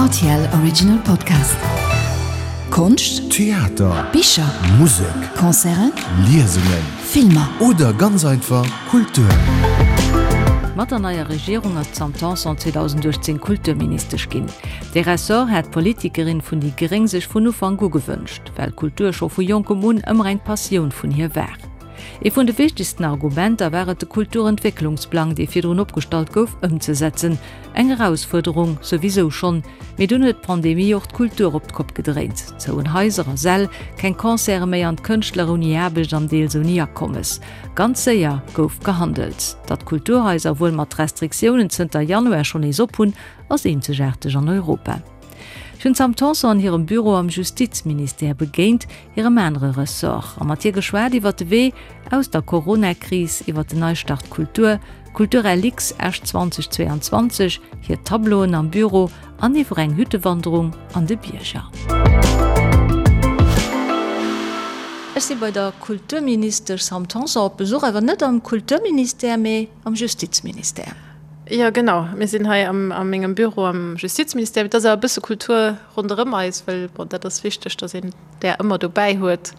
Rtl Original Podcast. Konscht, Theater, Bicher, Musek, Concerten, Liesungen, Filmer. Oder ganz einfach Kultur. Mat der neier Regierung ass d'Sam Tanson 2018 Kulturministesch ginn. Dee Ressort hat d'Politikerin vun déi gréng sech vun Ufank u gewënscht, well Kultur scho vu jonkem un ëmmer eng Passioun vun hir war. Ee vun de wichtegsten Argumenter war et de Kulturentwécklungsplang, dee virdrun opgestallt gouf, ëmzesetzen. Eng Erausfuerderung souwisou schonn, mee dunn huet d'Pandemie och d'Kultur op d'Kopp gedréint. Zouen Haiser a Säll, keng Concerte méi an d'Kënschtler ouni Aarbecht an deels ouni Akommes. Ganz séier gouf gehandelt. Datt d'Kulturhaiser wuel mat Restriktiounen zënter Januar schonn nees op hunn, ass eenzegaarteg an Europa. Ech hunn d'Sam Tanson an hirem Büro am Justizministère begéint, hirem anere Ressort, a mat hir geschwat iwwer de Wee aus der Corona-Kris, iwwer den Neistart Kultur, Kulturlx Esch 2022, hir Tableauen am Büro an iwwer eng Hüttewanderung an de Bierger. Ech si bei der Kulturministesch Sam Tanson op Besuch, awer net am Kulturministère, mee am Justizministère. Jo, genau. Mir sinn hei a mengem Büro am Justizministère. Et ass awer e bësse Kultur ronderëm eis, well bon, dat ass wichteg, datt een där ëmmer dobäi huet.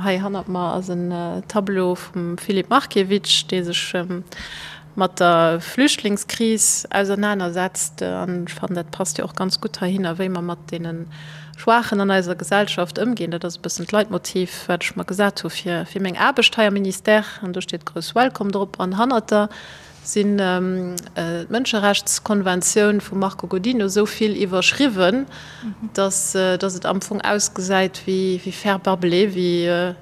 Hei hannert mer ass en Tableau vum Filip Markiewicz, dee sech mat der Flüchtlingskris ausernanersetzt. An ech fannen, dat passt jo och ganz gutt heihinner, wéi mer mat deene Schwaachen an eiser Gesellschaft ëmginn. Dat ass e bëssen d'Leitmotiv, wat ech mer gesat hu fir meng Aarbecht hei am Ministère. An do steet grouss Welcome drop an hannert der sinn d'Mënscherechtskonventioun vum Marco Godino esou vill iwwerschriwwen, datt et am Fong ausgesäit wéi Fer barbelé, wéi e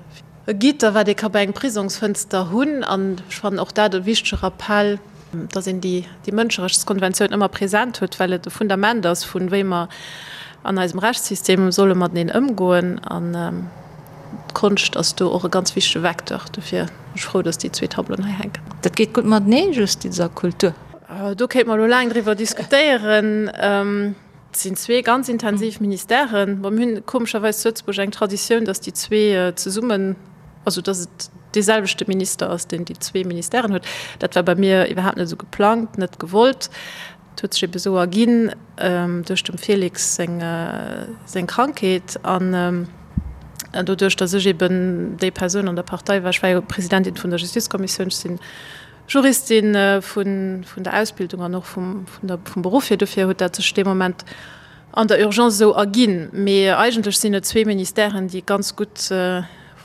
Gitter, wat ee ka bei engem Prisongsfënster hunn. An ech fannen och dat e wichtege Rappell, datt een déi Mënscherechtskonventioun ëmmer present huet, well et e Fundament ass vun wéi mer an eisem Rechtssystem solle mateneen ëmgoen. D'Konscht ass do och e ganz wichtege Vecteur. Dofir sinn ech frou, datt déi zwee Tableauen hei hänken. Dat geet gutt matenee, Justiz a Kultur? Do kéinte mer elo laang driwwer diskutéieren. Et sinn zwee ganz intensiv Ministèren. Bon, mir hunn komescherweis zu Lëtzebuerg eng Traditioun, datt déi zwee zesummen, also datt et dee selwechte Minister ass, deen déi zwee Ministèren huet. Dat war bei mir iwwerhaapt net esou geplangt, net gewollt. Et huet sech ebe sou erginn duerch dem Félix seng seng Krankheet an doduerch, datt ech eben déi Persoun an der Partei war, ech war jo Presidentin vun der Justizkommissioun, ech sinn Juristin vun vun der Ausbildung an och vum vun der vum Beruff hier, dofir huet dat sech dee Moment an der Urgence esou erginn. Mee eigentlech sinn et zwee Ministèren, déi ganz gutt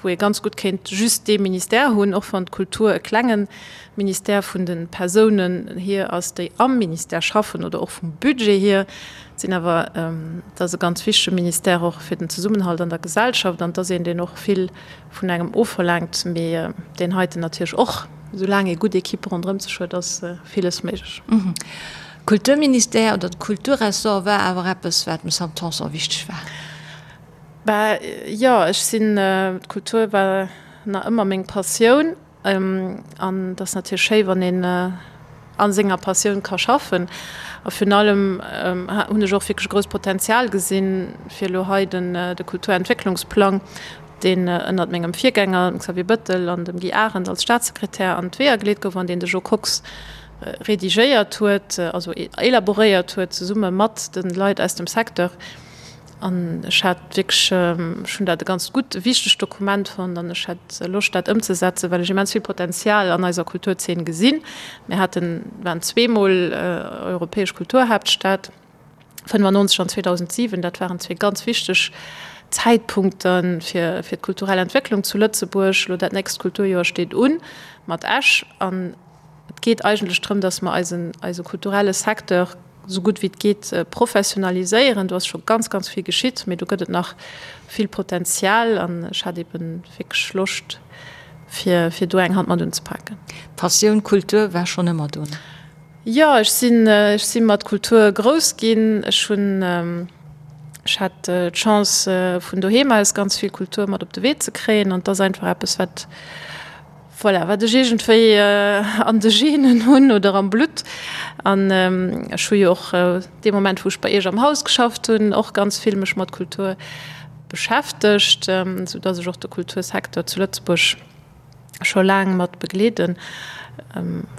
wou ee ganz gutt kéint just dee Ministère hunn, och wann d'Kultur e klenge Ministère vun de Persounen hier ass, déi am Ministère schaffen oder och vum Budget hier. Et sinn awer, et ass e ganz wichtege Ministère och fir den Zesummenhalt an der Gesellschaft an et ass een, deen och vill vun engem ofverlaangt, mee deen heiten natierlech och. Soulaang ee gutt Equipe ronderëm sech huet, ass villes méiglech. Kulturministère oder de Kulturressort war awer eppes, wat dem Sam Tanson wichteg war. Bah jo, ech sinn, d'Kultur war nach ëmmer meng Passioun an et ass natierlech schéi wann een a senger Passioun ka schaffen. A virun allem hunn ech och wierklech e grousst Potenzial gesinn, fir elo hei den de Kulturentwécklungsplang, deen ënnert mengem Virgänger, dem Xavier Bëttel an dem Guy Arendt als Staatssekretär an d'Weeër geleet gouf an deen de Jo Kox redigéiert huet, also élaboréiert huet zesumme mat de Leit aus dem Secteur. An ech hat wierklech, ech hunn dat e ganz gutt, e wichtegt Dokument fonnt an ech hat Loscht dat ëmzesetzen, well ech immens vill Potenzial an eiser Kulturzeen gesinn. Mir haten, waren zweemol europäesch Kulturhaaptstad, 95 an 2007, dat waren zwee ganz wichteg Zäitpunkte fir, fir d'kulturell Entwécklung zu Lëtzebuerg. Elo dat nächst Kulturjoer steet un mat Esch an et geet eigentlech drëm, datt mer eisen, eise kulturelle Secteur esou gutt wéi et geet professionaliséieren. Do ass scho ganz, ganz vill geschitt, mee do gëtt et nach vill Potenzial an ech hat eeben wierklech Loscht, fir, fir do eng Hand mat unzepaken. D'Passioun Kultur war schonn ëmmer do, ne? Jo, ech sinn, ech si mat Kultur grouss ginn. Ech hunn, ech hat d'Chance, vun doheem aus ganz vill Kultur mat op de Wee ze kréien an et ass einfach eppes, wat, Voilà, wat ech iergendwéi an de Genen hunn oder am Blutt. An ech hu jo och dee Moment, wou ech bei Iech am Haus geschafft hunn, och ganz vill mech mat Kultur beschäftegt, sou dass ech och de Kultursecteur zu Lëtzebuerg scho laang mat begleeden.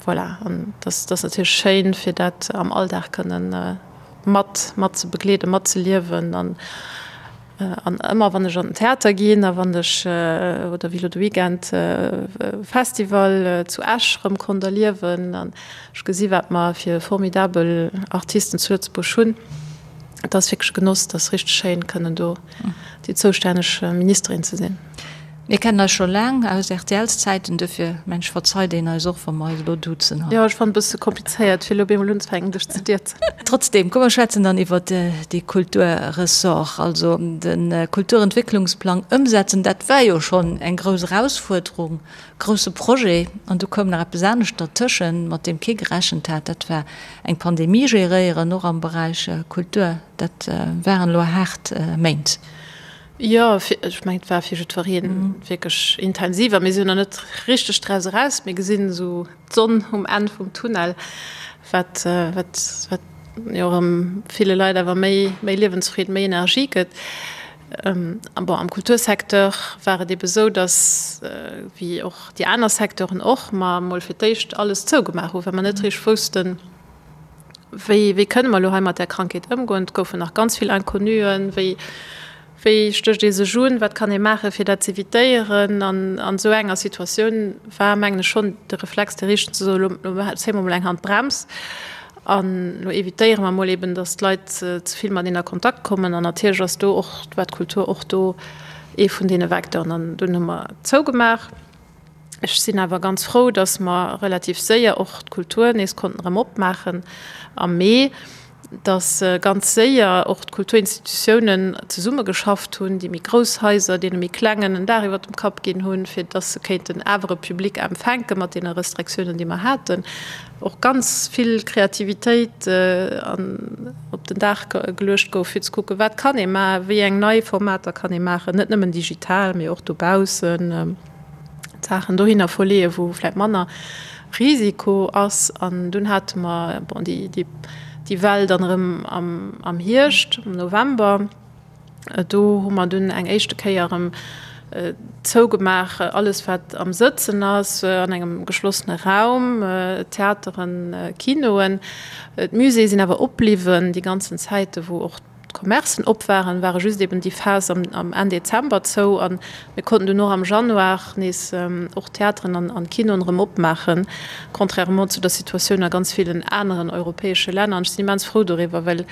Voilà, an dass ass natierlech schéin, fir dat am Alldag kënnen. mat mat ze begleeden, mat ze liewen an an ëmmer wann ech an den Theater ginn a wann ech oder wéi elo de Weekend Festival zu Esch rëm konnt erliewen an ech gesi wat mer fir formidabel Artisten zu Lëtzebuerg hunn, et ass wierklech e Genoss, et ass richteg schéin kënnen do déi zoustänneg Ministerin ze sinn. Mir kennen eis scho laang aus RTLs-Zäiten, duerfir mengen ech verzeit een eis och, wa mer eis elo duzen hei. Jo, ech fannen et e bësse komplizéiert, fir elo op eemol unzefänken, dech ze dierzen. Trotzdem, komm mer schwätzen dann iwwert dee Kulturressort. Also de Kulturentwécklungsplang ëmsetzen, dat war jo schonn eng grouss Erausfuerderung, grousse Projet. An du koum nach eppes anescht dertëschen, mat deem kee gerechent hat, dat war eng Pandemie geréieren, och am Beräich Kultur. Dat waren elo haart Méint. Jo, ech mengen, et war fir jiddweree wierklech intensiv a mir sinn nach net richteg draus eraus. Mir gesinn esou d'Sonn um Enn vum Tunnel, wat, wat, wat jo erëm ville Leit awer méi, méi Liewensfreed, méi Energie gëtt. A bon, am Kultursecteur war et ebe sou, datt, wéi och déi aner Secteuren och, mer emol fir d'éischt alles zougemaach hu, well mer net richteg woussten, Wéi, wéi kënne mer elo hei mat där Krankheet ëmgoen? Et goufen nach ganz vill Inconnuen. Wéi, wéi stécht ee sech un? Wat kann ee maachen, fir dat z'evitéieren? An an esou enger Situatioun war, mengen ech, schonn de Reflex dee richtegen, ze soen, elo, elo zéie mer emol eng Hand d'Brems an elo evitéiere mer emol eben, datt d'Leit ze vill mateneen a Kontakt kommen. An natierlech ass do och, war d'Kultur och do ee vun deene Vecteuren. An dunn hu mer zougemaach. Ech sinn awer ganz frou, datt mer relativ séier och d'Kultur nees konnten erëm opmaachen am Mee, datt ganz séier och d'Kulturinstitutiounen zesummegeschafft hunn, déi méi grouss Haiser deene méi klengen en Dag iwwer dem Kapp ginn hunn, fir datt se kéinten awer e Public empfänke mat deene Restriktiounen, déi mer haten. Och ganz vill Kreativitéit op den Dag geluecht gouf, fir ze kucken, wat kann ee maachen, wéi eng nei Formater kann ee maachen, net nëmmen digital, mee och dobaussen. d'Saachen dohinner verleeën, wou vläicht manner Risiko ass. An dunn hate mer, bon, déi, déi, déi Well dann erëm am, am Hierscht, am November. Do hu mer dunn eng éischte Kéier erëm zougemaach, alles wat am Sëtzen ass, an engem geschlossene Raum, Theateren, Kinoen. D'Muséeë sinn awer opbliwwen déi ganzen Zäite wou och D'Commercen op waren, ware just eben déi Phas am Enn Dezember zou an mir konnten dunn och am Januar nees och d'Theateren an d'Kinoen erëm opmaachen, contrairement zu der Situatioun a ganz villen aneren europäesche Länner. An ech sinn immens frou doriwwer, well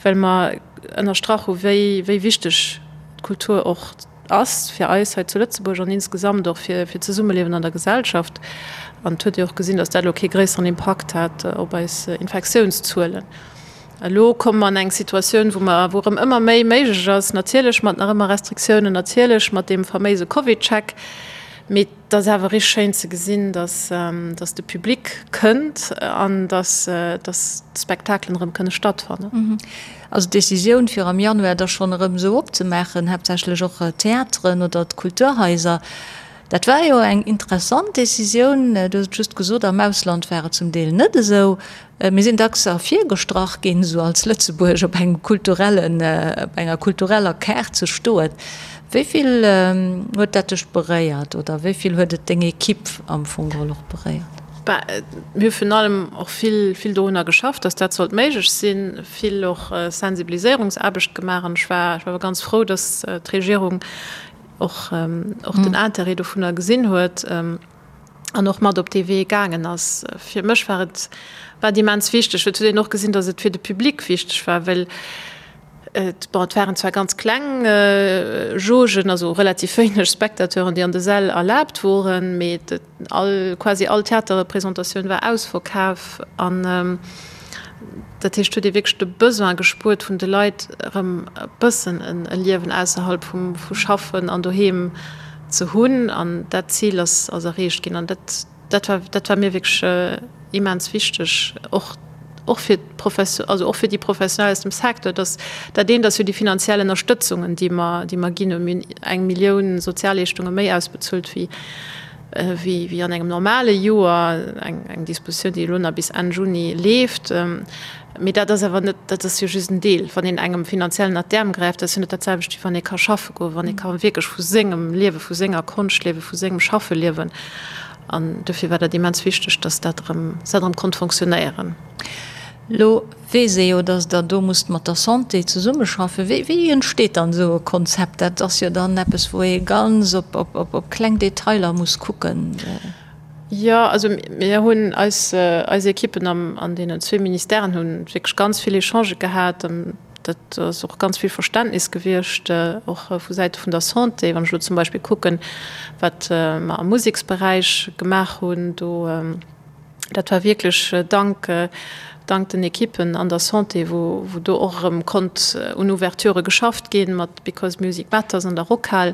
well mer ënnerstrach hu wéi wéi wichteg d'Kultur och ass fir eis hei zu Lëtzebuerg an insgesamt och fir fir d'Zesummeliewen an der Gesellschaft. An et huet ee och gesinn, datt dat elo kee gréisseren Impakt hat op eis Infektiounszuelen. Elo komme mer an eng Situatioun, wou mer, wou erëm ëmmer méi méiglech ass, natierlech mat nach ëmmer Restriktiounen, natierlech mat deem faméise CovidCheck, mee et ass awer richteg schéin ze gesinn, dass, dass de Public kënnt an dass, dass d'Spektakelen erëm kënne stattfannen. Also d'Decisioun, fir am Januar da schonn erëm esou opzemaachen, haaptsächlech och d'Theateren oder d'Kulturhaiser, dat war jo eng interessant Decisioun. Du hues et just gesot, am Ausland war et zum Deel net esou. Mir sinn dacks ervirgestrach ginn, esou als Lëtzebuerg op engem kulturellen, op enger kultureller Kaart ze stoen. Wéi vill huet dat dech beréiert oder wéi vill huet et deng Equipe am Fong geholl och beréiert? Bah, mir hu virun allem och vill, vill dorunner geschafft, datt dat sollt méiglech sinn, vill och Sensibiliséierungsaarbecht gemaach an ech war, ech war ganz frou, datt d'Regierung och, och den Intérêt dovunner gesinn huet. an och mat op dee Wee gaangen ass. Fir mech war et war et immens wichteg. Et huet een och gesinn, datt et fir de Public wichteg war, well et, bon, et waren zwar ganz kleng Jaugen, also relativ wéineg Spectateuren, déi an de Säll erlaabt woren, mee et all, quasi all Theaterrepresentatioun war ausverkaf an dat heescht, huet ee wierklech de Besoin gespuert vun de Leit, erëm e bëssen e Liewen ausserhalb vum vu Schaffen an doheem ze hunn an dat Zil ass ass erreecht ginn an dat dat war dat war mir wierklech immens wichteg, och och fir d'Profes also och fir déi Professionell aus dem Secteur, datt dat eent ass jo déi finanziell Ënnerstëtzungen, déi mer déi mer ginn hunn. Mir hunn eng Millioun Sozialleeschtunge méi ausbezuelt wéi wéi wéi an engem normale Joer, eng eng Dispositioun, déi elo nach bis Enn Juni leeft. Mee dat ass awer net, dat ass jo just en Deel. Wann een engem finanziell ënnert d'Äerm gräift, dat ass jo net dat selwecht, wéi wann ee ka schaffe goen, wann ee ka wierklech vu sengem Liewen, vu senger Konscht liewen, vu sengem Schaffe liewen. An dofir war dat immens wichteg, dass dat erëm, dass dat erëm konnt fonctionnéieren. Lo weess ee jo, datt Der do musst mat der Santé zesummeschaffen. Wéi, wéi entsteet dann esou e Konzept? Dat ass jo dann eppes, wou ee ganz op, op, op, op kleng Detailer muss kucken. Jo, also mir hunn eis, eis Ekippen am, an deenen zwee Ministèren hu wierklech ganz vill Echangë gehat. Dat ass och ganz vill Verständnis gewiescht, och vu Säite vun der Santé. Wann ech elo zum Beispill kucken, wat mer am Museksberäich gemaach hunn, do, Dat war wierklech dank, dank den Ekippen an der Santé, wou, wou do och erëm konnt un Ouverturë geschafft ginn, mat Because Music Matters an der Rockhal,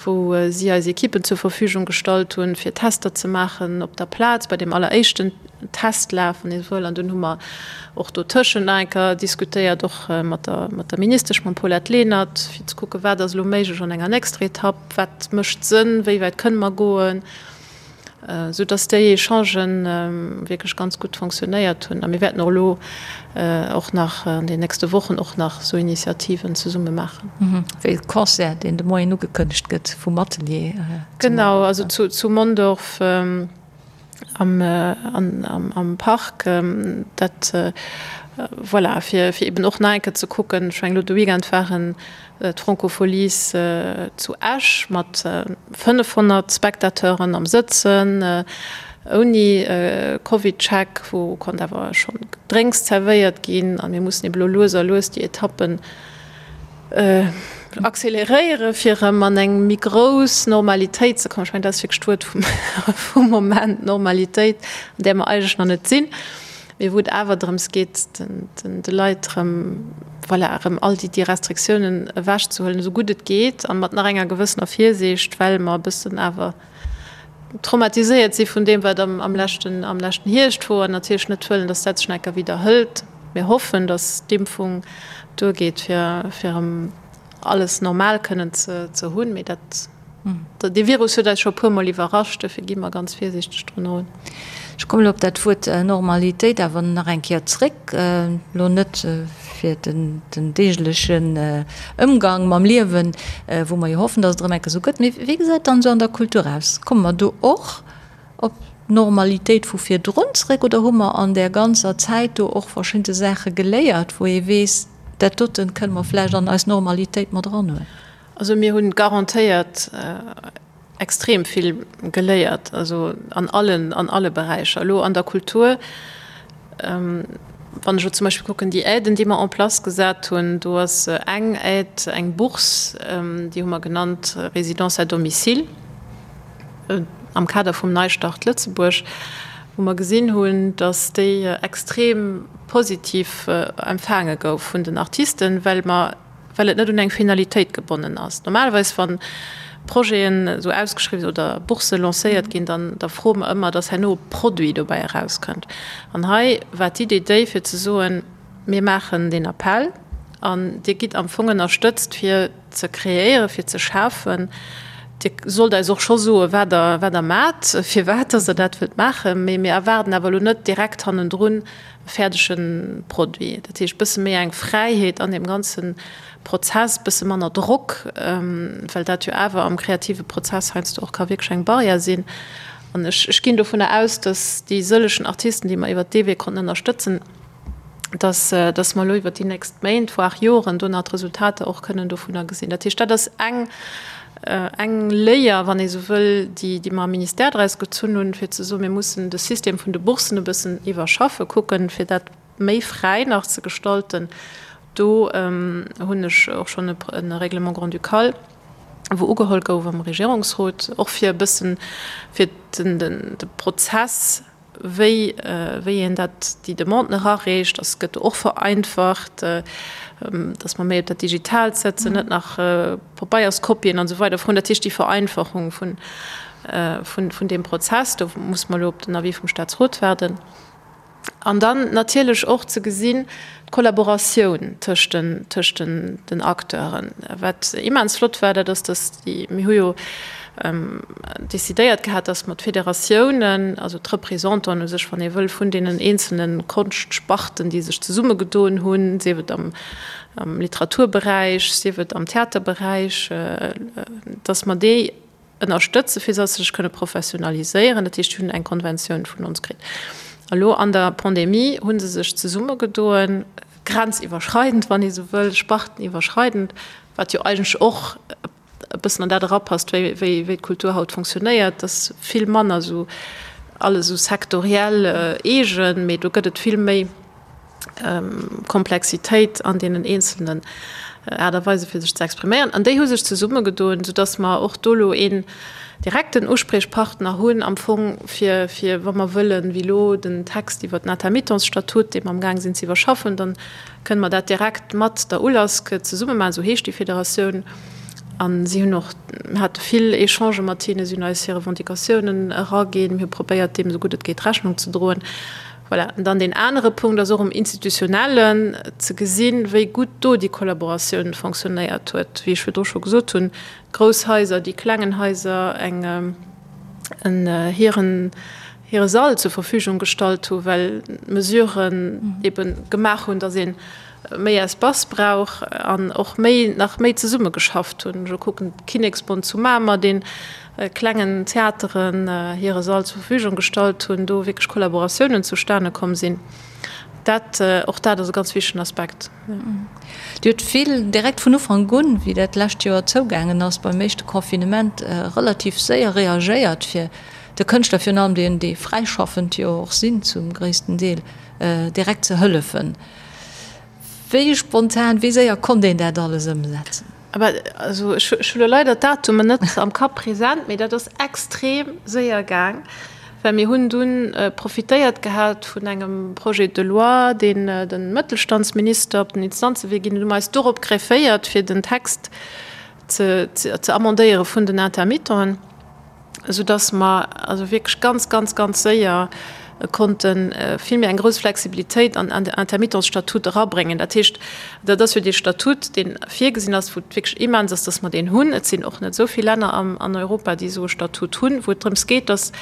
wou si eis Ekippen zur Verfügung gestallt hunn, fir Tester ze maachen op der Plaz bei deem alleréischten Testlaf, wann ee sou wëll. An dunn hu mer och dotëschent nach eng Kéier diskutéiert, och mat der, mat der Ministesch, mam Paulette Lenert, fir ze kucken, wat ass elo méiglech an enger nächster Etapp, wat mécht Sënn, wéi wäit kënne mer goen. Sou dass déi Echangen wierklech ganz gutt fonctionnéiert hunn. A mir wäerten och elo och nach an den nächste Wochen och nach esou Initiativen zesumme maachen. Wéi de Concert, deen de Moien ugekënnegt gëtt vum Atelier. Genau, also zu Mondorf am Park. Dat, voilà, fir eben och nach eng Kéier ze kucken. Ech mengen, elo de Weekend waren D'Francofolies zu Esch mat 500 Spectateuren am Sëtzen, ouni Covid-Check, wou konnt awer schonn Gedrénks zerwéiert ginn. A mir mussen ebe lo lues a lues déi Etappen acceleréiere fir erëm an eng méi grouss Normalitéit ze kommen. Ech mengen, dat ass wierklech d'Wuert vum Moment, Normalitéit, an där mer eigentlech nach net sinn. Mee wou et awer drëms geet, de Leit erëm, voilà, erëm all déi, déi Restriktiounen ewechzehuelen, esou gutt et geet a mat nach enger gewëssener Virsiicht, well mer e bëssen awer traumatiséiert si vun deem, wat am, am leschten, am leschten Hierscht wor an natierlech net wëllen, dass dat sech nach eng Kéier widderhëlt. Mir hoffen, dass d'Impfung duergeet, fir, fir erëm alles normal kënnen ze, ze hunn. Mee dat. Dee Virus huet eis scho e puer Mol iwwerrascht, dofir gi mer ganz virsiichteg drun erun. Ech kommen elo op dat Wuert Normalitéit awer nach eng Kéier zréck, elo net fir den deeglechen Ëmgang mam Liewen, wou mer jo hoffen, datt et erëm eng Kéier esou gëtt, mee wéi gesäit et dann esou an der Kultur aus? Komme mer do och op d'Normalitéit vu virdrun zréck oder hu mer an där ganzer Zäit do och verschidde Saache geléiert, wou ee weess, dat doten kënne mer vläicht an eis Normalitéit mat eranhuelen? Also mir hunn garantéiert extrem vill geléiert, also an allen, an alle Beräicher. Elo an der Kultur, wann ech elo zum Beispill kucken, déi Aiden, déi mer en place gesat hunn, do ass eng Aide, eng Bourse, déi hu mer genannt Résidence à domicile am Kader vum Neistart Lëtzebuerg, wou mer gesinn hunn, datt déi extrem positiv empfaange gouf vun den Artisten, well mer, well et net un eng Finalitéit gebonnen ass. Normalerweis, wa Projeten esou ausgeschriwwen oder Boursse lancéiert ginn, dann da froe mer ëmmer, dass herno e Produit dobäi erauskënnt. An hei war d'Idee déi, fir ze soen, Mir maachen deen Appell an Dir gitt am Fong ënnerstëtzt, fir ze kreéieren, fir ze schafen. Dir sollt eis och scho soen, wat Der, wat Der maacht, firwat dass Der dat wëllt maachen. Mee mir erwaarden awer elo net direkt hannendrun, e fäerdege Produit. Dat heescht, bësse méi eng Fräiheet an deem ganze Prozess, bësse manner Drock, well dat jo awer am kreative Prozess heiansdo och ka wierklech eng Barrière sinn. An ech, ech ginn dovunner aus, datt déi sëllegen Artisten, déi mer iwwert dee Wee konnten ënnerstëtzen, datt, datt mer elo iwwert déi nächst Méint, voire Joren do nach d'Resultater och kënnen dovunner gesinn. Dat heescht, dat ass eng, eng Léier, wann ee sou wëll, déi, déi mer am Ministère draus gezunn hunn, fir ze soen, mir mussen de System vun de Bourssen e bëssen iwwerschaffen, kucken, fir dat méi fräi nach ze gestalten. Do hunn ech och schonn e Règlement grand-ducal, wou ugeholl gouf am Regierungsrot, och fir e bëssen, fir den, de Prozess, wéi wéi een dat, déi Demanden erareecht, ass, gëtt och vereinfacht, dass mer méi op dat Digitaalt setzen, net nach Pabeierskopien an esou weider froen. Dat heescht, déi Vereinfachung vun, vun, vun deem Prozess, do muss mer elo op den Avis vum Staatsrot waarden. An dann natierlech och ze gesinn, d'Kollaboratioun tëscht den, tëscht den, den Acteuren. Wat immens flott war, dat ass, dass déi, mir hu jo decidéiert gehat, dass mer d'Federatiounen, also d'Représentanten u sech, wann ee wëll, vun deenen eenzelne Konschtsparten, déi sech zesummegedoen hunn, sief et am, am Literaturberäich, sief et am Theaterberäich, dass mer déi ënnerstëtzen, fir dass se sech kënne professionaliséieren. Dat heescht, déi hunn eng Konventioun vun ons kritt. A lo an der Pandemie hu se sech zesummegedoen, grenziwwerschreidend, wann ee sou wëll, sparteniwwerschreidend, wat jo eigentlech och e bëssen an dat erapasst, wéi, wéi, wéi d'Kultur haut fonctionnéiert, dass vill manner esou alles esou sektoriell eegen, mee do gëtt et vill méi Komplexitéit an deenen eenzelnen Aart a Weise fir sech ze expriméieren. An déi hu sech zesummegedoen, soudass mer och do elo een direkten Uspriechpartner hunn am Fong fir, fir wa mer wëllen, wéi elo den Text iwwert den Intermittenzstatut, dee mer amgaang sinn ze iwwerschaffen, dann kënne mer dat direkt mat der ULASC zesumme maachen, esou heescht déi Federatioun. A si hunn och, mir hate vill Echangë mat hinnen, si hunn eis hir Revendicatiounen eraginn, mir hu probéiert, deem esou gutt et geet Rechnung ze droen. Voilà. An dann deen anere Punkt ass och um Institutionellen ze gesinn, wéi gutt do déi Kollaboratioun fonctionnéiert huet. Wéi ech virdru scho gesot hunn, d'grouss Haiser, déi klengen Haiser eng en hiren hire Sall zur Verfügung gestallt hu well d'Mesuren ebe gemaach hunn, datt ee méi Espace brauch an och méi nach méi zesummegeschafft hunn. Ech kucken d'Kinneksbond zu Mamer, deen klengen Theateren hire Sall zur Verfügung gestallt hunn, do wierklech Kollaboratiounen zustane komm sinn. Dat, och dat ass e ganz wichtegen Aspekt. Dir hutt vill direkt vun Ufank un, wéi dat lescht Joer zougaangen ass beim éischte Confinement, relativ séier reagéiert, fir de Kënschtler, virun allem deenen, déi fräischaffend jo och sinn zum gréissten Deel, direkt ze hëllefen. Wéi spontan, wéi séier konnt een dat alles ëmsetzen? Aber also ech hu lo leider d'Datumen net am Kapp present, mee dat ass extrem séier gaang, well mir hunn dunn profitéiert gehat vun engem Projet de loi, deen de Mëttelstandsminister op den Instanzewee ginn huet, hu mer eis dorop grefféiert, fir den Text ze ze amendéiere vun den Intermittenten. esou dass mer also wierklech ganz, ganz, ganz séier konnte vill méi eng grouss Flexibilitéit an an de Intermittenzstatut erabréngen. Dat heescht, dat ass jo dee Statut, dee virgesinn ass, wou et wierklech immens ass, dass mer deen hunn. Et sinn och net esou vill Länner am an Europa, déi esou e Statut hunn, wou et drëms geet, dass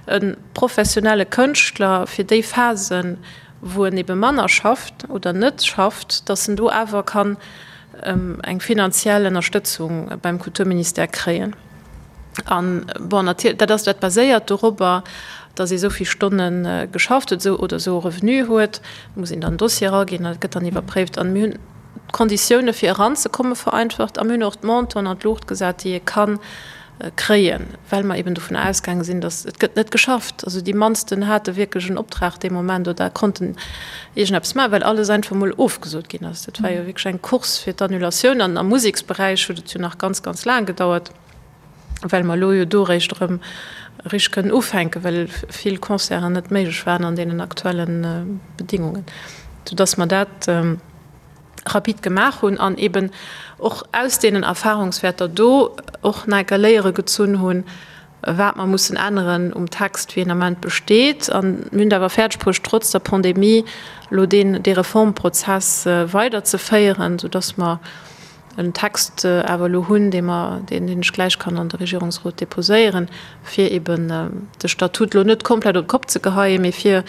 e professionelle Kënschtler fir déi Phasen, wou en ebe manner schafft oder net schafft, dass en do awer kann eng finanziell Ënnerstëtzung beim Kulturministère kréien. An, bon, natierlech, dat ass, dat baséiert dorobber, datt ee sou vill Stonne geschafft huet, esou oder esou e Revenu huet. Do muss een dann en Dossier eraginn, dat gëtt dann iwwerpréift. An mir hunn d'Konditioune fir eranzekomme vereinfacht a mir hunn och d'Montanten an d'Luucht gesat, déi ee ka kréien, well mer eben dovun ausgaange sinn, datt et gëtt net geschafft. Also déi mannsten hate wierklech en Optrag dee Moment oder konnten iergendeppes maachen, well alles einfach mol ofgesot ginn ass. Dat war jo wierklech eng Course fir d'Annulatioun an am Museksberäich huet et jo nach ganz, ganz laang gedauert, well mer elo jo do eréischt erëm richteg kënnen ufänken, well vill Concerten net méiglech waren an deenen aktuelle Bedingungen, soudass mer dat rapid gemaach hunn an eben och aus deenen Erfahrungswäerter do och nach eng Kéier Léiere gezunn hunn, wat mer mussen änneren um Text, wéi en Ament besteet. An mir hunn et awer fäerdeg bruecht, trotz der Pandemie elo deen, dee Reformprozess weiderzeféieren, soudass mer en Text awer elo hunn, dee mer, deen, deen ech gläich kann an de Regierungsrot déposéieren, fir eben de Statut elo net komplett op d'Kopp ze geheien, mee fir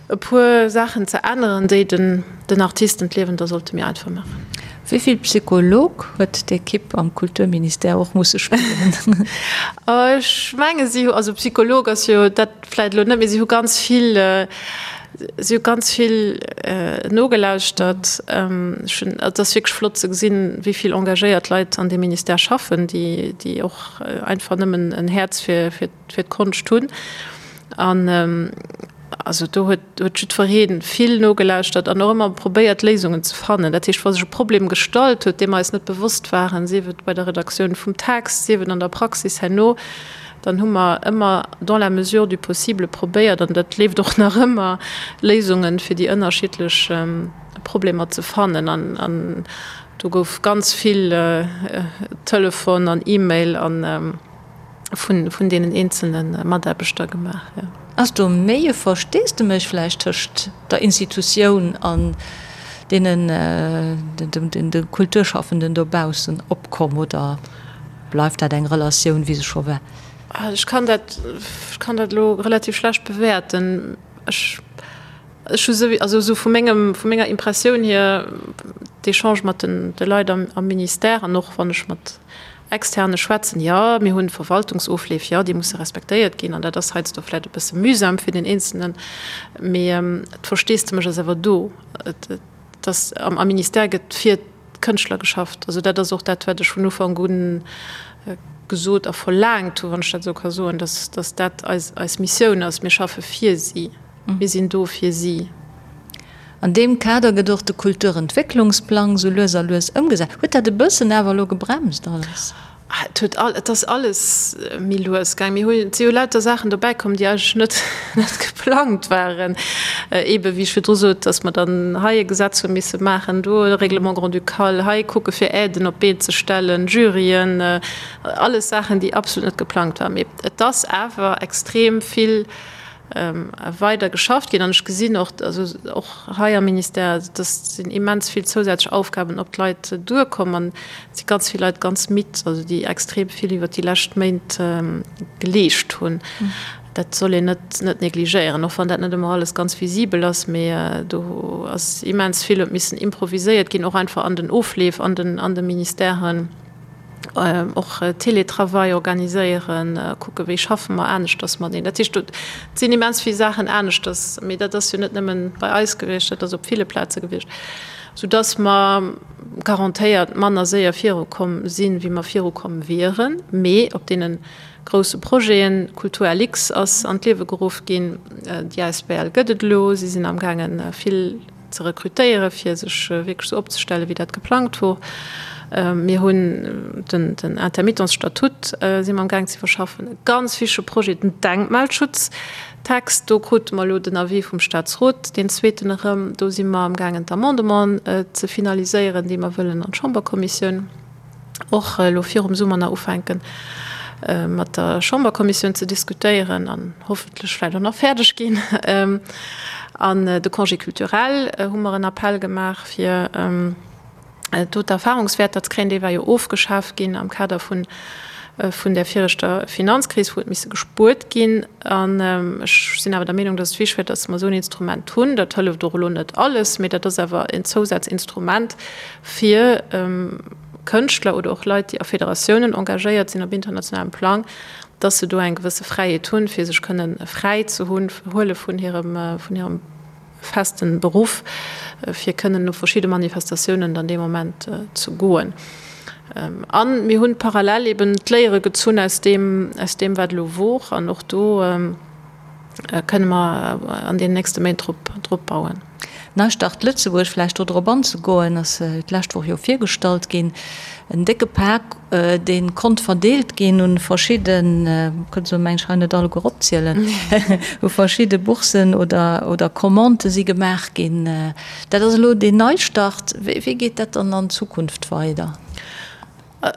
e puer Saachen ze änneren, déi den, den Artisten d'Liewen da sollte méi einfach maachen. Wéi vill Psycholog huet d'Ekipp am Kulturministère och musse spillen? Ech menge si hu, also Psycholog ass jo dat vläicht elo net, mee si hu ganz vill, si hu ganz vill nogelauschtert. Ech hunn, et ass wierklech flott ze gesinn, wéi vill engagéiert Leit an deem Ministère schaffen, déi, déi och einfach nëmmen en Häerz fir, fir fir d'Konscht hunn. An also do huet huet jiddweree vill nogelauschtert an och ëmmer probéiert Léisungen ze fannen. Dat heescht, wa sech e Problem gestallt huet, deem mer eis net bewosst waren, sief et bei der Redaktioun vum Text, sief et an der Praxis herno, dann hu mer ëmmer dans la mesure du possible probéiert, an dat leeft och nach ëmmer, Léisungen fir déi ënnerschiddlech Problemer ze fannen. An do gouf ganz vill Telefon an E-Mail an. vun, vun deenen eenzelne Mataarbechter gemaach, jo. Ass do méi e Versteesdemech vläicht tëscht der Institutioun an deenen, den, de Kulturschaffenden dobaussen opkomm oder bleift dat eng Relatioun, wéi se scho war? Ech kann dat, ech kann dat elo relativ schlecht bewäerten. Ech, ech hu souwi, also esou vu mengem, vu menger Impressioun hier, d'Echange mat den, de Leit am, am Ministère an och wann ech mat. Externe schwätzen. Jo, mir hunn Verwaltungsofleef, jo, déi musse respektéiert ginn an dat ass heiansdo vläicht e bësse mühsam fir den Eenzelnen, mee d'Versteesdemech ass awer do. Et ass, am Ministère gëtt fir d'Kënschtler geschafft. Also dat ass och dat, wat ech vun Ufank u gesot a verlaangt hu, wann ech dat esou ka soen, dass, dass dat eis, eis Missioun ass. Mir schaffe fir si. Mir sinn do fir si. An deem Kader gëtt och de Kulturentwécklungsplang sou lues a lues ëmgesat. Huet dat e bëssen awer elo gebremst alles? Et huet all, et ass alles méi lues gaang. Mir hunn, et si jo lauter Saachen dobäi komm, déi eigentlech net, net geplangt waren. Eebe wéi ech virdru sot, datt mer dann hei e Gesetz hu misse maachen, do e Règlement grand-ducal, hei kucke fir Aiden op d'Been ze stellen, Juryen, alles Saachen, déi absolut net geplangt waren. Mee et ass awer extrem vill weider geschafft ginn. An ech gesinn och, also och hei am Ministère, dass sinn immens vill zousätzlech Aufgaben op d'Leit duerkomm an et si ganz vill Leit ganz midd, also déi extrem vill iwwert déi lescht Méint geleescht hunn. Dat soll een net net negligéieren, och wann dat net ëmmer alles ganz visibel ass, mee do ass immens vill huet missen improviséiert ginn, och einfach an den Ofleef an den an de Ministèren. Och Teletravail organiséieren, kucke wéi schaffe mer aneschters mateneen. Dat heescht, do sinn immens vill Saachen aneschters, mee dat ass jo net nëmmen bei eis gewiescht, dat ass op ville Plaze gewiescht, soudass mer garantéiert manner séier virukomm sinn, wéi mer virukomm wieren. Mee op deene grousse Projeten, Kultur LX ass an d'Liewe geruff ginn, déi asbl gëtt et elo, si sinn amgaangen vill, ze rekrutéieren, fir sech wierklech esou opzestellen, wéi dat geplangt wor. Mir hunn den Intermittents-Statut si mer amgaang ze iwwerschaffen. E ganz wichtige Projet, den Denkmalschutztext. Do krute mer elo den Avis vum Statsrot, deen zweeten erëm. Do si mer amgaangen, d'Amendementen ze finaliséieren, déi mer wëllen an d'Chamberkommissioun. och elo virum Summer nach ufänken, mat der Chamberkommissioun ze diskutéieren an hoffentlech vläicht och nach fäerdeg ginn. An de Congé culturel hu mer en Appell gemaach, fir do d'Erfahrungswäerter ze kréien. Dee war jo ofgeschaf ginn am Kader vun vun där viregter Finanzkris, wou huet misse gespuert ginn. An ech sinn awer der Meenung, dass et wichtig wär, dass mer esou en Instrument hunn. Dat hëlleft och elo net alles, mee dat ass awer en Zousazinstrument, fir Kënschtler oder och Leit, déi a Federatiounen engagéiert sinn op internationalem Plang, dass se do eng gewësse Fräiheet hunn, fir sech kënnen fräi ze hunn, huele vun hirem, vun hirem festen Beruff, fir kënnen op verschidde Manifestatiounen dann dee Moment ze goen. A mir hunn parallel eben d'Léiere gezunn aus deem, aus deem wat elo wor an och do, kënne mer an deenen nächste Méint drop, drop bauen. Neistart Lëtzebuerg, vläicht do drop anzegoen, ass d'lescht Woch jo virgestallt ginn. En décke Pak, dee konnt verdeelt ginn un verschidden, kënnt se meng ech hei net alleguer opzielen, u verschidde Boursen oder, oder Commandë si gemaach ginn. Dat ass elo deen Neistart. Wéi, wéi geet dat dann an Zukunft weider?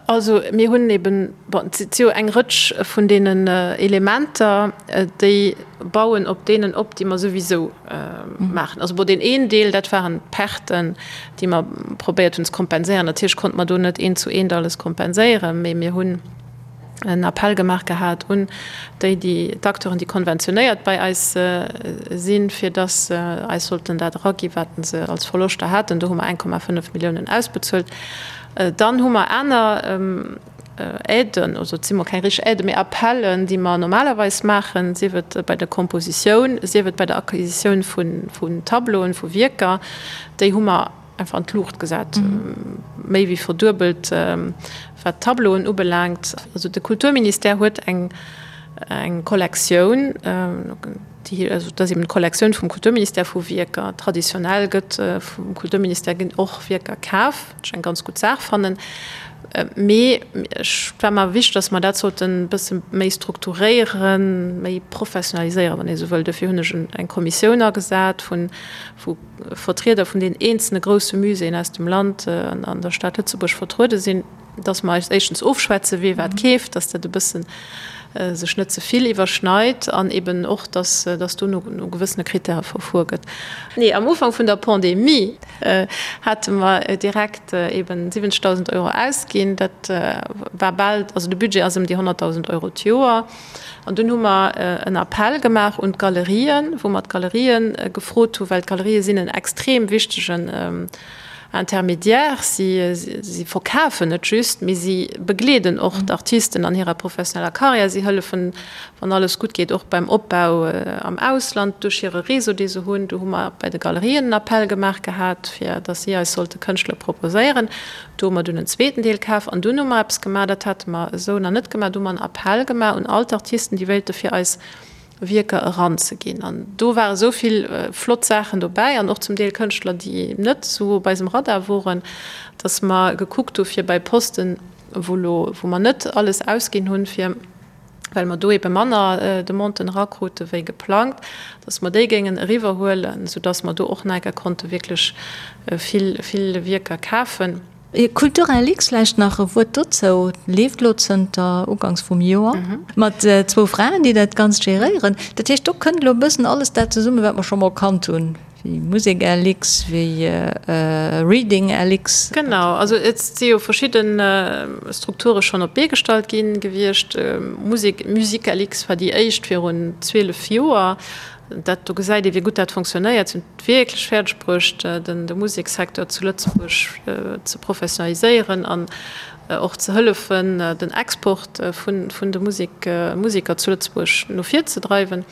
Also mir hunn eben, bon, et si jo eng Rëtsch vun deenen Elementer, déi bauen op deenen op, déi mer souwisou maachen. Also bon, deen een Deel, dat waren d'Perten, déi mer probéiert hunn ze kompenséieren. Natierlech konnte mer do net eent zu eent alles kompenséieren, mee mir hunn en Appell gemaach gehat un déi, déi, d'Acteuren, déi konventionéiert bei eis sinn, fir dass se eis sollten dat eraginn, wat se als Verloschter haten. Do hu mer 1,5 Milliounen ausbezuelt. Dann hu mer aner Aiden, also et si mol keng richteg Aiden, mee Appellen, déi mer normalerweis maachen, sief et bei der Kompositioun, sief et bei der Acquisitioun vun Tableauen, vu Wierker, déi hu mer einfach an d'Luucht gesat, méi wéi verduebelt, wat d'Tableauen ubelaangt. Also de Kulturministère huet eng Kollektioun, déi, also dat ass eben d'Kollektioun vum Kulturministère vu Wierker. Traditionell gëtt vum Kulturministère ginn och Wierker kaf, wat ech eng ganz gutt Saach fannen. Mee ech war mer wichteg, datt mer dat sollten e bësse méi strukturéieren, méi professionaliséieren, wann ee sou wëll. Dofir hunn ech eng Kommissioun agesat vu vu Vertrieder vun den eenzelne grousse Muséeën aus dem Land an an der Stad Lëtzebuerg vertruede sinn. dass mer eis éischtens ofschwätzen, wee wat keeft, dass dat e bëssen sech net ze vill iwwerschneit an eben och, dass dass do no no gewëssene Kritäre verfuer gëtt. Nee, am Ufank vun der Pandemie hate mer direkt eben 70.000 Euro ausginn. Dat war bal, also de Budget ass ëm déi 100.000 Euro d'Joer. An dunn hu mer en Appell gemaach un d'Galerien, wou mer d'Galerien gefrot hu, well d'Galerië sinn en extrem wichtegen. Intermédiaire. Si, si verkafen net just, mee si begleeden och d'Artisten an hirer professioneller Karriär. Si hëllefen, wann alles gutt geet, och beim Opbau am Ausland duerch hire Réseau, dee se hunn. Do hu mer bei de Galerien en Appell gemaach gehat, fir datt si eis sollte Kënschtler proposéieren. Do hu mer dunn en zweeten Deel kaf an dunn hu mer eppes gemaach, dat hate mer esou nach net gemaach, do hu mer en Appell gemaach un all d'Artisten, déi wéilte fir eis Wierker eranzeginn. An do ware sou vill flott Saachen dobäi an och zum Deel Kënschtler, déi net esou op eisem Radar woren, datt mer gekuckt hu fir bei Posten, wou lo, wou mer net alles ausginn hunn, fir, well mer do ebe manner Demanden erakrute wéi geplangt, datt mer déi géingen eriwwerhuelen, soudatt mer do och nach eng Kéier konnte wierklech vill, vill Wierker kafen. Culturelux, vläicht nach e Wuert dozou, leeft elo zënter uganks vum Joer mat zwou Fraen, déi dat Ganzt geréieren. Dat heescht, do kënnt elo e bëssen alles dat zesummen, wat mer scho mol kannt hunn, wéi Musek-LX, wéi Reading-LX. Genau, also et si jo verschidde Strukture schonn op d'Bee gestallt gi gewiescht. Musek, Musique-LX war déi éischt virun 12 Joer. Dat do gesäit ee wéi gutt dat fonctionnéiert. Si hunn et wierklech fäerdeg bruecht, den de Musekssecteur zu Lëtzebuerg ze professionaliséieren an och ze hëllefen, den Export vun vun de Musek Museker zu Lëtzebuerg no vir ze dreiwen.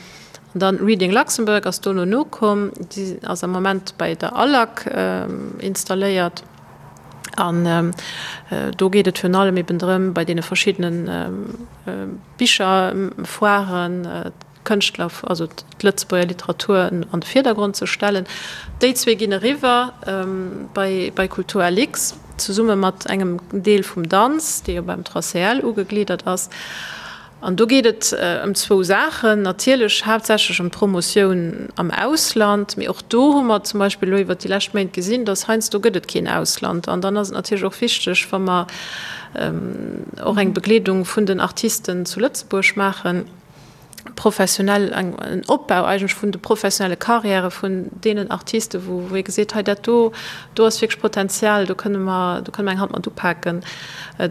An dann Reading Luxembourg ass dono nokomm. Déi ass am Moment bei der ALAC installéiert. An do geet et virun allem eben drëm, bei deene verschiddene Bicherfoiren, d'Kënschtler, also d'Lëtzebuerger Literatur an de Virdergrond ze stellen. Déi zwee ginn eriwwer bei bei Kultur LX, zesumme mat engem Deel vum Danz, dee jo beim 3CL ugegliddert ass. An do geet et ëm zwou Saachen, natierlech haaptsächlech ëm d'Promotioun am Ausland, mee och do hu mer zum Beispill elo iwwert déi lescht Méint gesinn, datt heiansdo gëtt et keen Ausland. An dann ass et natierlech och wichteg, wa mer och eng Begleedung vun den Artisten zu Lëtzebuerg maachen, professionell, eng, en Opbau eigentlech vun de professionelle Carrièrë vun deenen Artisten, wou, wou ee geseet, hei dat do, do ass wierklech Potenzial, do kënne mer, do kënne mer eng Hand mat upaken,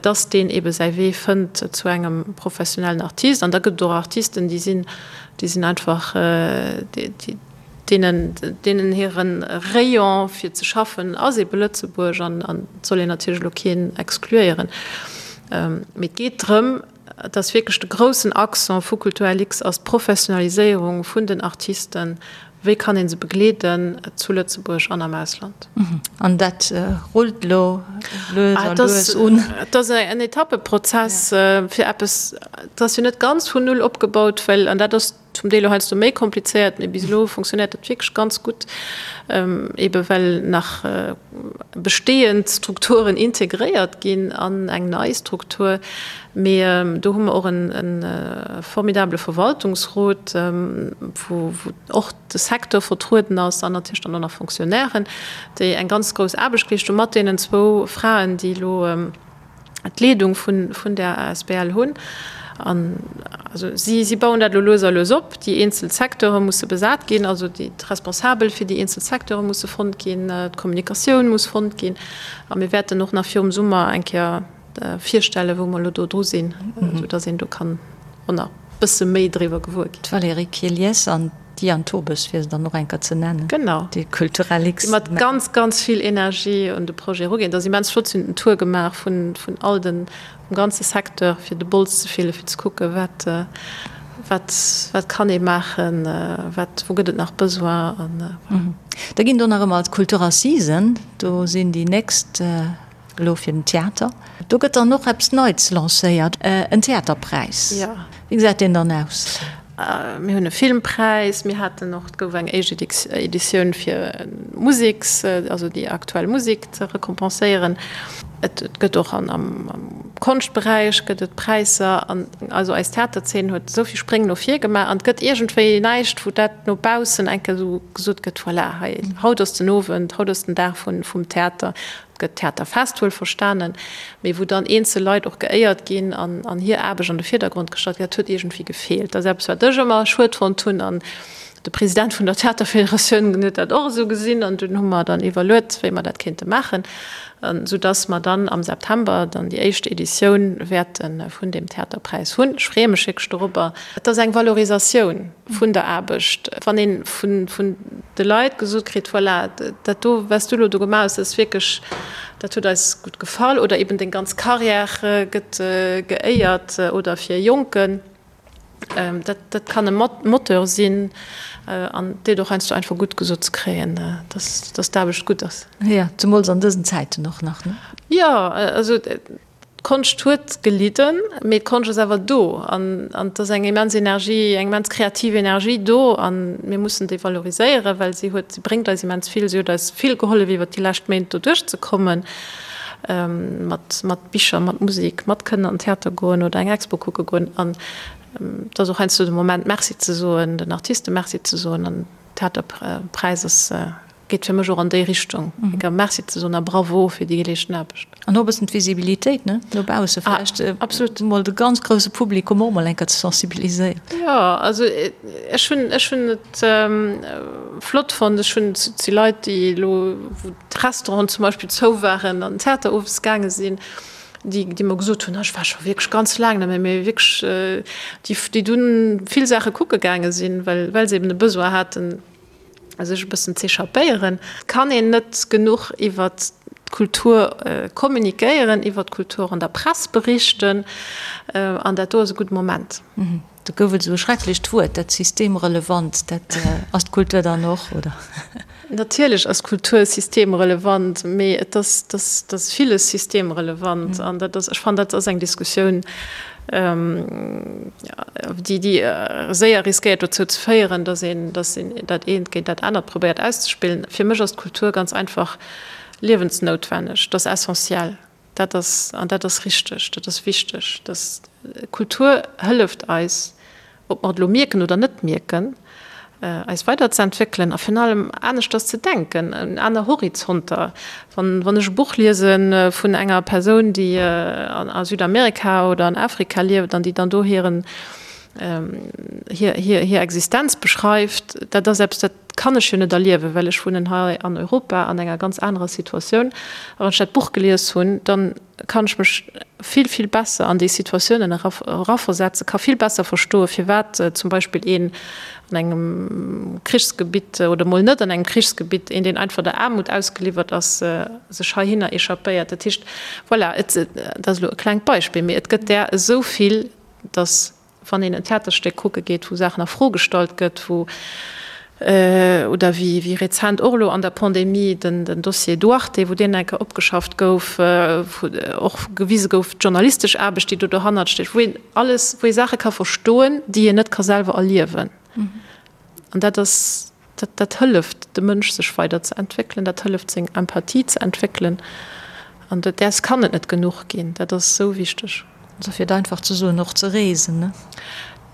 dass deen eebe säi Wee fënnt zu engem professionellen Artist. An da gëtt et och Artisten, déi sinn, déi sinn einfach, déi, déi, deenen, deenen hire Rayon fir ze schaffen ass eebe Lëtzebuerg an, an et soll een natierlech elo keen exkluéieren. Mee et geet drëm, Et ass wierklech de groussen Accent vu Kulturlux ass d'Professionaliséierung vun den Artisten. Wéi kann ee se begleeden zu Lëtzebuerg an am Ausland? An dat rullt elo lues a lues un. Et ass en Etappeprozess fir eppes, et ass jo net ganz vun Null opgebaut, well, an dat ass Zum Deel och heiansdo méi komplizéiert, mee bis elo funktionéiert dat wierklech ganz gutt, ebe well nach bestehend Strukturen integréiert ginn an eng nei Struktur. Mee do hu mer och e formidabele Verwaltungsrot, wou och de Secteur vertrueden ass an natierlech dann och nach Fonctionnairen, déi eng ganz grouss Aarbecht geleescht hu mat deenen zwou Fraen, déi elo, d'Leedung vun, vun där asbl hunn. An also si, si bauen dat elo lues a lues op. Déi eenzel Secteure musse besat ginn, also déi, d'Responsabel fir déi eenzel Secteure musse fonnt ginn, d'Kommunikatioun muss fonnt ginn. A mir wäerten och nach virum Summer eng Kéier virstellen, wou mer elo do dru sinn, soudass een do kann och nach e bësse méi driwwer gewuer ginn. D'Valérie Kielies an D'Diane Tobes, fir se dann och eng Kéier ze nennen. Genau. Déi Kulturellix. Déi mat ganz, ganz vill Energie un de Projet eruginn. Et ass immens flott. Si hunn den Tour gemaach vun, vun all den, vum ganze Secteur, fir de Bols ze fillen, fir ze kucken, wat, wat, wat kann ee maachen, wat, wou gëtt et nach Besoin an voilà. Da ginn do nach ëmmer d'Kulturassisen. Do sinn déi nächst Elo fir den Theater. Do gëtt dann och eppes Neits lancéiert, en Theaterpräis. Jo. Wéi gesäit deen dann aus? Mir hunn e Filmpräis, mir haten och, et gouf eng éischt Editioun fir Museks, also déi aktuell Musek ze rekompenséieren. Et gëtt och am Konschtberäich gëtt et Präisser. An also eis Theaterzeen huet esou vill Spréng no vir gemaach an et gëtt iergendwéi näischt, wou dat no baussen eng Kéier esou gesot gëtt, voilà, hei, haut ass den Owend, haut ass den Dag vum Theater. gëtt Theaterfest wuelverstanen, mee wou dann eenzel Leit och geéiert ginn an an hir Aarbecht an de Virdergrond gestallt gëtt, dat huet iergendwéi gefeelt. Dat ass eppes, wat ech ëmmer schued fonnt hunn an de President vun der Theaterfederatioun huet dat och esou gesinn an dunn hu mer dann iwwerluet, wéi mer dat kéinte maachen, soudass mer dann am September dann déi éischt Editioun wäerte vun deem Theaterpräis hunn. Ech freeë mech wierklech dorobber. Et ass eng Valorisatioun vun der Aarbecht, wann ee vun de Leit gesot kritt, voilà, dat do, wat s du elo do gemaach hues, dat ass wierklech, dat huet eis gutt gefall, oder eben deng ganz Carrière gëtt geéiert, oder fir e Jonken, dat, dat kann e Moteur sinn an et deet och heiansdo einfach gutt, gesot ze kréien, dass, dass d'Aarbecht gutt ass. Jo, zemools an dësen Zäiten och nach, ne? Jo, also D'Konscht huet gelidden, mee d'Konscht ass awer do an et ass eng immens Energie, eng immens kreativ Energie do a mir mussen déi valoriséieren, well si huet, si bréngt eis immens vill. Si huet eis vill gehollef iwwert déi lescht Méint do duerchzekommen, mat, mat Bicher, mat Musek, mat kënnen an den Theater goen oder eng Expo kucke goen. An et ass och heiansdo de Moment Merci ze soen, den Artiste Merci ze soen an Theaterpräis ass Geet fir mech och an déi Richtung, enker Merci ze soen a Bravo fir déi geleeschten Aarbecht. An och e bëssen d'Visibilitéit, ne, no bausse vläicht. Absolut. Mol de ganz grousse Publikum och mol enker ze sensibiliséieren. Jo, also ech hunn, ech hunn et flott fonnt. Ech hunn, et si Leit, déi elo, wou d'Restauranten zum Beispill zou waren, an den Theater owes gaange sinn, déi, déi mer gesot hunn, ech war scho wierklech ganz laang net méi, mee wierklech, déi, déi dunn vill Saache kucke gaange sinn, well, well se eben e Besoin haten, sech e bëssen z'échappéieren. Et kann een net genuch iwwert d'Kultur kommunikéieren, iwwert d'Kultur an der Press berichten, an dat do ass e gudde Moment. Do gouf et esou e schrecklecht Wuert, dat systemrelevant. Dat ass d'Kultur dann och, oder? Natierlech ass Kultur systemrelevant, mee et ass, et ass villes systemrelevant. An dat ass, ech fannen, dat ass eng Diskussioun, déi déi séier riskéiert dozou ze féieren, datt een datt een dat eent géint dat anert probéiert auszespillen. Fir mech ass d'Kultur ganz einfach liewensnoutwenneg, dat ass essentiell, dat ass an dat ass richteg, dat ass wichteg. Datt Kultur hëlleft eis, ob mer et elo mierken oder net mierken, eis weiderzeentwéckelen a virun allem aneschters ze denken, aner Horizonter. Wann, wann ech e Buch liese vun enger Persoun, déi a Südamerika oder an Afrika lieft an déi dann do hiren, hir, hir, hir Existenz beschreift, dat ass eppes, dat kann ech jo net erliewen, well ech wunnen hei an Europa an enger ganz anerer Situatioun. A wann ech dat Buch gelies hunn, dann kann ech mech vill, vill besser an déi Situatiounen eraversetzen, ka vill besser verstoen, firwat zum Beispill een an engem Krichsgebitt oder mol net an engem Krichsgebitt, een, deen einfach der Aarmut ausgeliwwert ass, sech heihinner échappéiert. Dat heescht, voilà, et, dat ass elo e klengt Beispill, mee et gëtt där esou vill, datt Wann een en Theaterstéck kucke geet, wou Saachen a Fro gestallt gëtt, wou, oder wéi wéi rezent och elo an der Pandemie den den Dossier Duarte, wou deen eng Kéier opgeschafft gouf, wou och gewise gouf, d'journalistesch Aarbecht, déi do dohannert steet, wou een alles, wou ee Saache ka verstoen, déi een net ka selwer erliewen. An dat ass Dat, dat hëlleft dem Mënsch, sech weider ze entwéckelen, dat hëlleft, seng Empathie ze entwéckelen. An dat, däers kann et net genuch ginn. Dat ass esou wichteg. Also fir et einfach ze soen, och ze reesen, ne?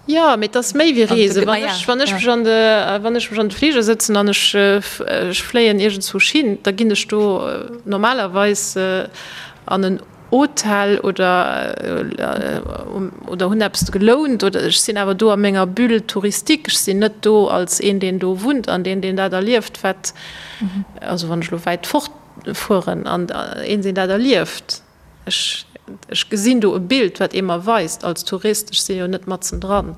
Jo, mee et ass méi wéi reesen. Wann ech, wann ech mech an de, wann ech mech an de Fliger sëtzen an ech, ech fléien iergendzwousch hin, da ginn ech do normalerweis an en Hotel oder oder hunn eppes gelount oder ech sinn awer do a menger Bulle touristique. Ech sinn net do als een, deen do wunnt an deen, deen dat erlieft, wat, also wann ech elo wäit fort fueren an een, deen dat erlieft. Ech, ech gesinn do e Bild, wat ee mer weist als Tourist. Ech si jo net matzendran.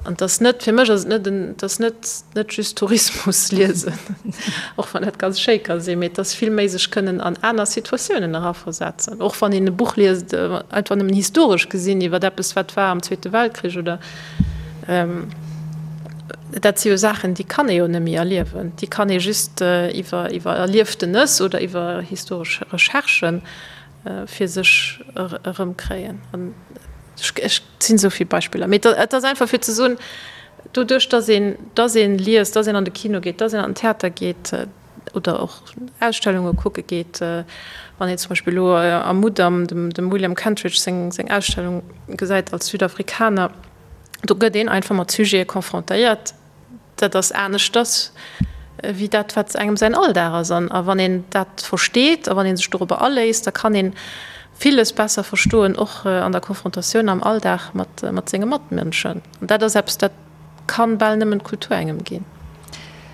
An et ass net, fir mech ass et net en, et ass net, net just Tourismus liesen, och wann dat ganz schéi ka sinn, mee et ass vill méi sech kënnen an aner Situatiounen eraversetzen. Och wann een e Buch liest, einfach nëmmen historesch gesinn iwwer eppes, wat war am Zweete Weltkrich oder, dat si jo Saachen, déi kann ee jo net méi erliewen, déi kann ee just iwwer, iwwer Erlieftenes oder iwwer historesch Recherchen fir sech erëmkréien. An ech, Et sinn esou vill Beispiller, mee et ass einfach fir ze soen, doduerch datt een, datt een liest, datt een an de Kino geet, datt een an den Theater geet oder och Ausstellunge kucke geet, wann een zum Beispill elo am Mudam dem, dem William Kentridge seng, seng Ausstellung gesäit als Südafrikaner, do gëtt een einfach mat Sujete confrontéiert, Dat ass aneschters. wéi dat, wat engem säin Alldag ass. An a wann een dat versteet a wann ee sech dorobber aléisst, da kann ee villes besser verstoen, och an der Konfrontatioun am Alldag mat, mat senge Matmënschen. An dat ass eppes, dat kann bal nëmmen d'Kultur engem ginn.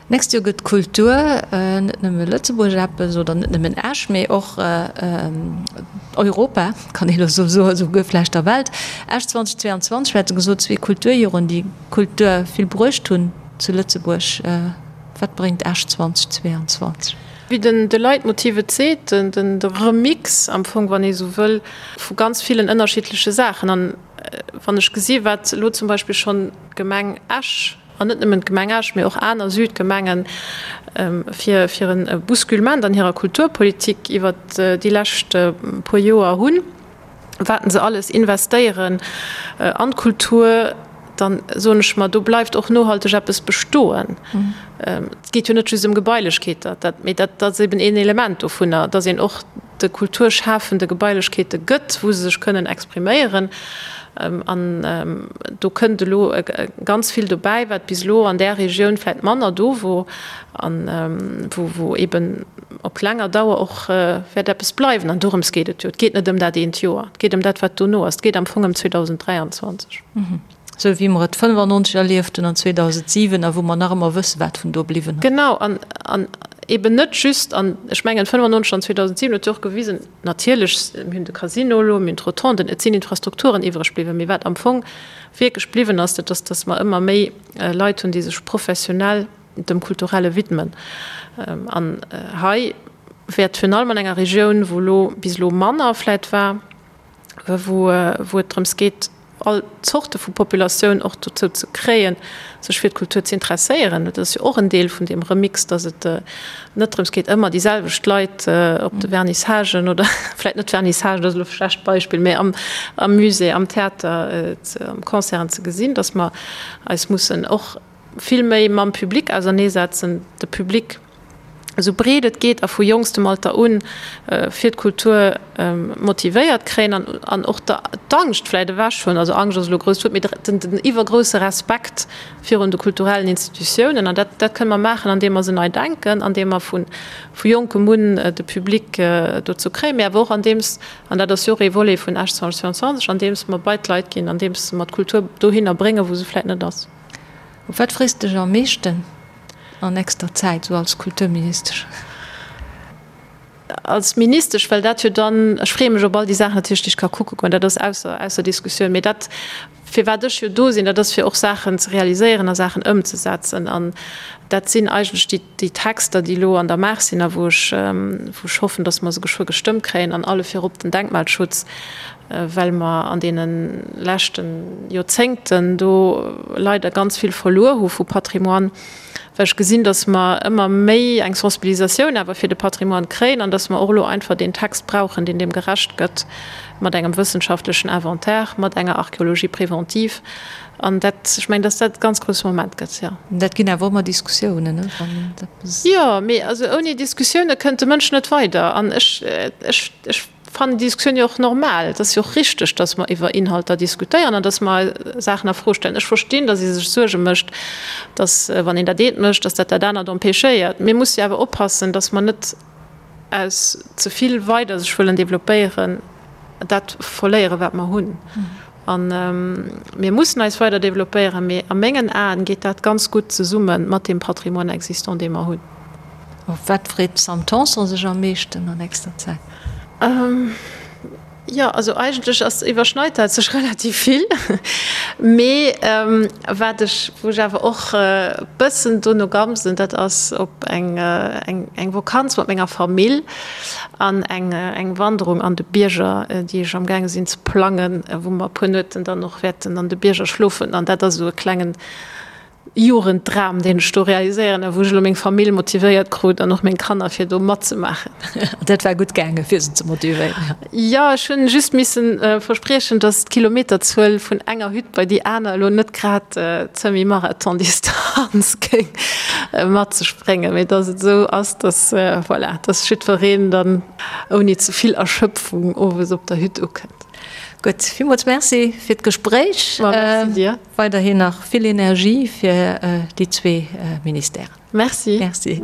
D'nächst Joer gëtt d'Kultur net nëmme Lëtzebuerg eppes oder net nëmmen Esch, mee och Europa, kann ee lo sou soen, esouguer vläicht der Welt. Esch 2022, mir hate gesot, zwee Kulturjoren, déi Kultur vill bruecht hunn zu Lëtzebuerg. Wat bréngt Esch 2022? Wéi den de Leitmotiv et seet, den de Remix am Fong, wann ee sou wëll, vu ganz villen ënnerschiddleche Saachen. An wann ech gesi wat elo zum Beispill schonn d'Gemeng Esch, an net nëmmen d'Gemeng Esch, mee och aner Südgemengen, fir fir e Bousculement an hirer Kulturpolitik iwwert déi lescht puer Joer hunn, wat se alles investéieren an d'Kultur, dann soen ech mer, do bleift och nohalteg eppes bestoen. Et geet jo net just ëm Gebailechkeeter, dat, mee dat ass eben een Element dovunner, dass een och de Kulturschafende Gebailechkeete gëtt, wou se sech kënnen expriméieren. An do kënnt elo ganz vill dobäi, wat bis elo an där Regioun vläicht manner do wor an wou eben op laanger Dauer och wäert eppes bleiwen. An dorëms geet et jo. Et geet net ëm dat eent Joer, et geet ëm dat, wat dono ass. Et geet am Fong ëm 2023. Esou wéi mer et 95 erlieft hunn an 2007 a wou mer nach ëmmer wëssen, wat vun do bliwwen ass. Genau, an, an eben net just, an ech mengen 95 an 2007 huet jo och gewisen, natierlech, mir hunn de Casino elo, mir hunn d'Rotonden, et sinn Infrastrukturen iwwreg bliwwen, mee wat am Fong wierklech bliwwen ass, dat ass, datt mer ëmmer méi Leit hunn, déi sech professionell dem Kulturelle widmen. An hei wäert virun allem an enger Regioun, wou elo bis elo manner vläit war, wou et drëms geet, all Zorte vu Populatioun och dozou ze kréien, sech fir d'Kultur ze interesséieren. Dat ass jo och en Deel vun deem Remix, datt et net drëms geet, ëmmer déi selwecht Leit op de Vernissagen oder vläicht net Vernissagen, dat ass elo e schlecht Beispill, mä am Musée, am Theater, am Concerten ze gesinn, datt mer eis mussen och vill méi mam Public auserneesetzen, de Public esou breet et geet a vu jonkstem Alter un fir d'Kultur motivéiert kréien an an och d'Angscht vläit ewech hunn, also Angscht ass elo e grousst Wuert, mee den den iwwergrousse Respekt virun de kulturellen Institutiounen. An dat dat kënne mer maachen, andeem mer se nei denken, andeem mer vu vu jonkem un de Public dozou kréien, mee awer och andeems, an dat ass jo och ee Volet vun Esch 2022, andeems mer bei d'Leit ginn, andeems mer d'Kultur dohinner bréngen, wou se vläit net ass. Op wat frees de dech am meeschten an nächster Zäit, sou als Kulturministesch? Als Ministesch, well dat jo dann, ech freeë mech op all déi Saachen natierlech, déi ech ka kucke goen, dat ass ausser, ausser Diskussioun. Mee dat, firwat ech jo do sinn, dat ass fir och Saachen ze realiséieren a Saachen ëmzesetzen. An dat sinn eigentlech déi, déi Texter, déi elo an der Maach sinn a wou ech, wou ech hoffen, datt mer se geschwë gestëmmt kréien, an alle virop den Denkmalschutz, well mer an deene leschte Joerzéngten do leider ganz vill verluer hu vu Patrimoine, well ech gesinn, datt mer ëmmer méi eng Sensibilisatioun awer fir de Patrimoine kréien an datt mer och elo einfach deen Text brauchen, deen deem gerecht gëtt, mat engem wëssenschaftlechen Inventaire, mat enger Archéologie préventive. An dat, ech mengen, datt dat e ganz grousse Moment gëtt, jo. Dat ginn awer ëmmer Diskussiounen, ne, wann eppes. Jo, mee also ouni Diskussioune kënnt de Mënsch net weider. An ech, ech, ech. Fannen déi Diskussioun jo och normal. Et ass jo och richteg, datt mer iwwer Inhalter diskutéieren an datt mer Saachen a Fro stellen. Ech verstinn, datt ee sech Suerge mécht, datt, wann een dat eent mécht, datt dat dat anert empêchéiert. Mir musse jo awer oppassen, datt mer net aus ze vill weider sech wëllen développéieren, dat verléieren, wat mer hunn. A mir mussen eis weider développéieren, mee a mengen Aen geet dat ganz gutt zesumme mat deem Patrimoine existant, dee mer hunn. Op wat freet d'Sam Tanson sech am meeschten an nächster Zäit? Jo, also eigentlech ass, iwwerschneit dat sech relativ vill. Mee wat ech, wou ech awer och e bëssen dono gamsen, dat ass op eng, eng Vokanz mat menger Famill an eng, eng Wanderung an de Bierger, déi ech amgaange sinn ze plangen, wou mer e puer Nueten dann och wäerten an de Bierger schlofen. An dat ass esou e klengen Jugenddram, deen ech do realiséieren a wou ech elo meng Famill motivéiert krut an och meng Kanner, fir do matzemaachen. Dat war gutt gaangen, fir se ze motivéieren? Jo, ech hunn just missen verspriechen, dass d'Kilometerzuel vun enger Hütt bei déi aner elo net grad d'Semi-Marathon-Distanz géing mat sech bréngen, mee dass et esou ass, dass, voilà, dass jiddwereen dann ouni ze vill Erschöpfung owes op der Hütt ukënnt. Gutt, villmools Merci fir d'Gespréich. Ma merci dir. Weiderhin nach vill Energie fir déi zwee Ministèren. Merci. Merci.